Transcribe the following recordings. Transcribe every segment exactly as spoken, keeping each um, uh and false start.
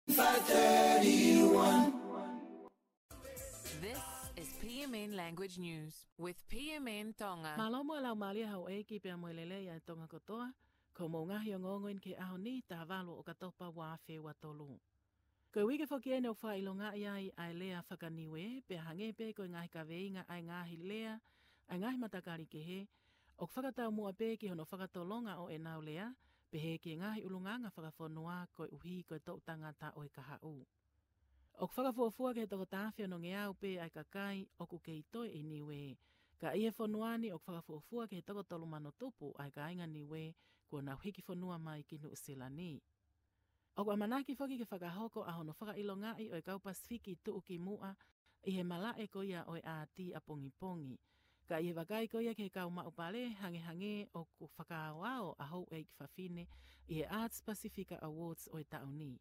Five thirty-one. This is P M N Language News with P M N Tonga. Mālō mo e laumālie houʻeiki pea mo e lelei ʻa e Tonga kotoa. Ko hoʻomou ngaahi ongoongo eni ki he ʻaho ni, taha valu ʻo ʻOkatopa ua afe ua tolu. Ko e uike foki eni ʻoku fakaʻilongaʻi ai ʻa e lea faka-Niuē, pea hangē pē ko e ngaahi kaveinga ʻa e ngaahi lea ʻa e ngaahi matakali kehe, ʻoku fakataumuʻa pē ki hono fakatolonga ʻo ʻenau lea, pehē ki he ngaahi ʻulungaanga fakafonua koeʻuhi ko e toʻu tangata ʻo e kahaʻu. ʻOku fakafuofua ki he toko taha afe onongeau pē ʻa e kakai ʻoku kei toe ʻi Niuē. Ka ʻi he fonua ni ʻoku fakafuofua ki he toko tolu mano tupu ʻa e kāinga Niuē kuo nau hiki fonua mai ki Nuʻusila ni. ʻOku ʻamanaki foki ke fakahoko ʻa hono fakaʻilongaʻi ʻo e kau Pasifiki tuʻukimuʻa ʻi he malaʻe ko ia ʻo e ʻāti ʻapongipongi. Ka ʻi he vakai ko ia ki he kau maʻu pale, hangehangē ʻoku fakaaoao ʻa houʻeiki fafine ʻi he Arts Pasifika Awards ʻo e taʻu ni.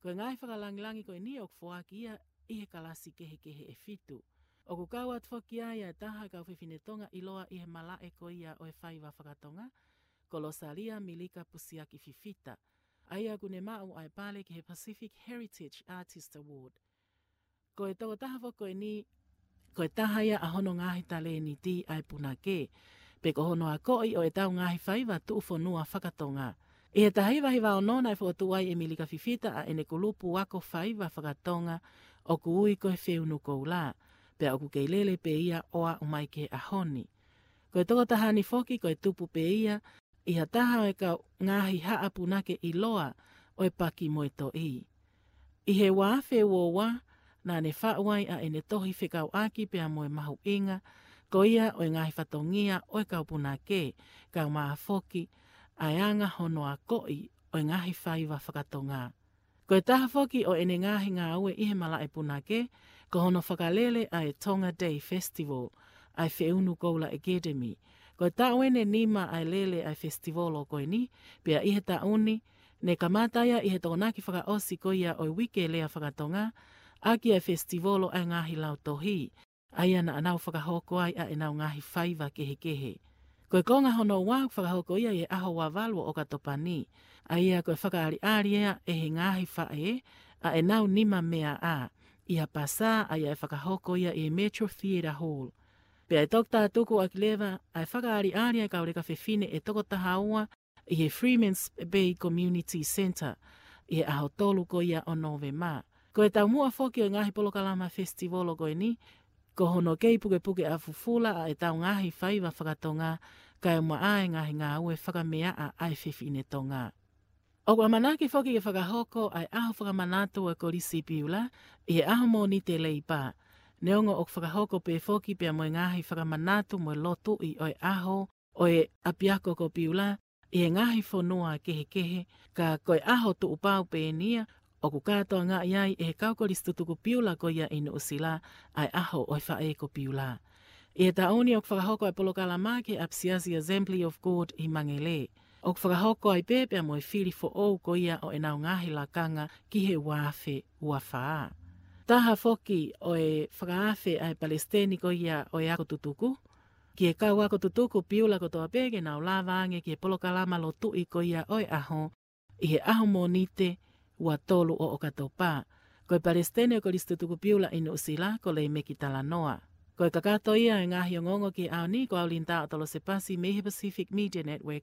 Ko e ngaahi fakalangilangi ko eni ʻoku foaki ia ʻi he kalasi kehekehe ʻe fitu. ʻOku kau atu foki ai ʻa e taha kau fefine Tonga ʻiloa ʻi he malaʻe ko ia ʻo e faiva fakatonga, ko Losalia Milika Pusiaki Fifita, ʻa ia ʻoku ne maʻu ʻa e pale ki he Pacific Heritage Artist Award. Ko e tokotaha foki ko eni, ko e taha ia ʻa hono ngaahi talēniti ʻa e punake, pe ko hono akoʻi ʻo ʻetau ngaahi faiva tuʻufonua fakatonga. ʻI he taha hiva hiva ono naʻe fokotuʻu ai ʻe Milika Fifita ʻa ʻene kulupu ako faiva fakatonga ʻoku ui ko e Feunu Koula, pea ʻoku kei lele pē ia ʻo aʻu mai ki he ʻaho ni. Ko e tokotaha ni foki ko e tupu pē ia ʻi ha taha ʻo e kau ngaahi haʻa punake ʻiloa ʻo e Paki mo e Toʻi. ʻI he ua afe ua ua, naʻa ne faʻu ai ʻa ʻene tohi fekauʻaki pea mo e mahuʻinga ko ia ʻo e ngaahi fatongia ʻo e kau punake, kaeʻumaʻā foki ʻa e anga hono akoʻi ʻo e ngaahi faiva fakatonga. Ko e taha foki ʻo ʻene ngaahi ngāue ʻi he malaʻe punake, ko hono fakalele ʻa e Tonga Day Festival ʻa e Feunu Koula Academy. Ko e taʻu eni ʻe nima ʻa e lele ʻa e festival ko eni, pea ʻi he taʻu ni, ne kamata ia ʻi he Tokonaki fakaʻosi ko ia ʻo e Uike Lea Fakatonga, ʻaki ʻa e festival ʻa e ngaahi lautohi, ʻa ia naʻa nau fakahoko ai ʻa ʻenau ngaahi faiva kehekehe. Ko e konga hono ua ʻoku fakahoko ia ʻi he ʻaho ua valu ʻo ʻOkatopa ni, ʻa ia ko e fakaʻaliʻali ia ʻe he ngaahi faʻē ʻa ʻenau nima meʻa ʻi ha pasā ʻa ia ʻe fakahoko ia ʻi he Metro Theatre Hall. Pea ʻe toki tātuku ʻaki leva ʻa e fakaʻaliʻali ʻa e kau leka fefine ʻe toko taha ua ʻi he Freeman's Bay Community Centre ʻi he ʻaho tolu ko ia ʻo Nōvema. Ko e taumuʻa foki ʻo e ngaahi polokalama festival ko eni, ko hono kei pukepuke ʻa fufula ʻa ʻetau ngaahi faiva fakatonga, kaeʻumaʻā e ngaahi ngāue fakameaʻa ʻa e fefine Tonga. ʻOku ʻamanaki foki ke fakahoko ʻa e ʻaho fakamanatu ʻo e Kolisi Piula ʻi he ʻaho Mōnite Leipa. Neongo ʻoku fakahoko pē foki pea mo e ngaahi fakamanatu mo e lotuʻi ʻo e ʻaho ʻo e ʻapiako ko Piula ʻi he ngaahi fonua kehekehe, ka ko e ʻaho tuʻupau pē eni ia ʻoku kātoangaʻi ai ʻe he kau kolisi tutuku Piula ko ia ʻi Nuʻusila ʻa e ʻaho ʻo e faʻē ko Piula. ʻI he taʻu ni ʻoku fakahoko ʻa e polokalama ki he ʻapisiasi Assembly of God ʻi Mangele. ʻOku fakahoko ai pē pea mo e fili foʻou ko ia ʻo ʻenau ngaahi lakanga ki he ua afe ua fā. Taha foki ʻo e fakaafe ʻa e palesiteni ko ia ʻo e ako tutuku ki he kau ako tutuku Piula kotoa pē ke nau lava ange ki he polokalama lotuʻi ko ia ʻo e ʻaho, ʻi he ʻaho Mōnite ua tolu ʻo ʻOkatopa. Ko e palesiteni ʻo e Kolisi Tutuku Piula ʻi Nuʻusila, ko Leimeki Talanoa. Ko e kakato ia ʻo e ngaahi ongoongo ki he ʻaho ni, ko au Linda ʻOtolosepasi mei he Pacific Media Network,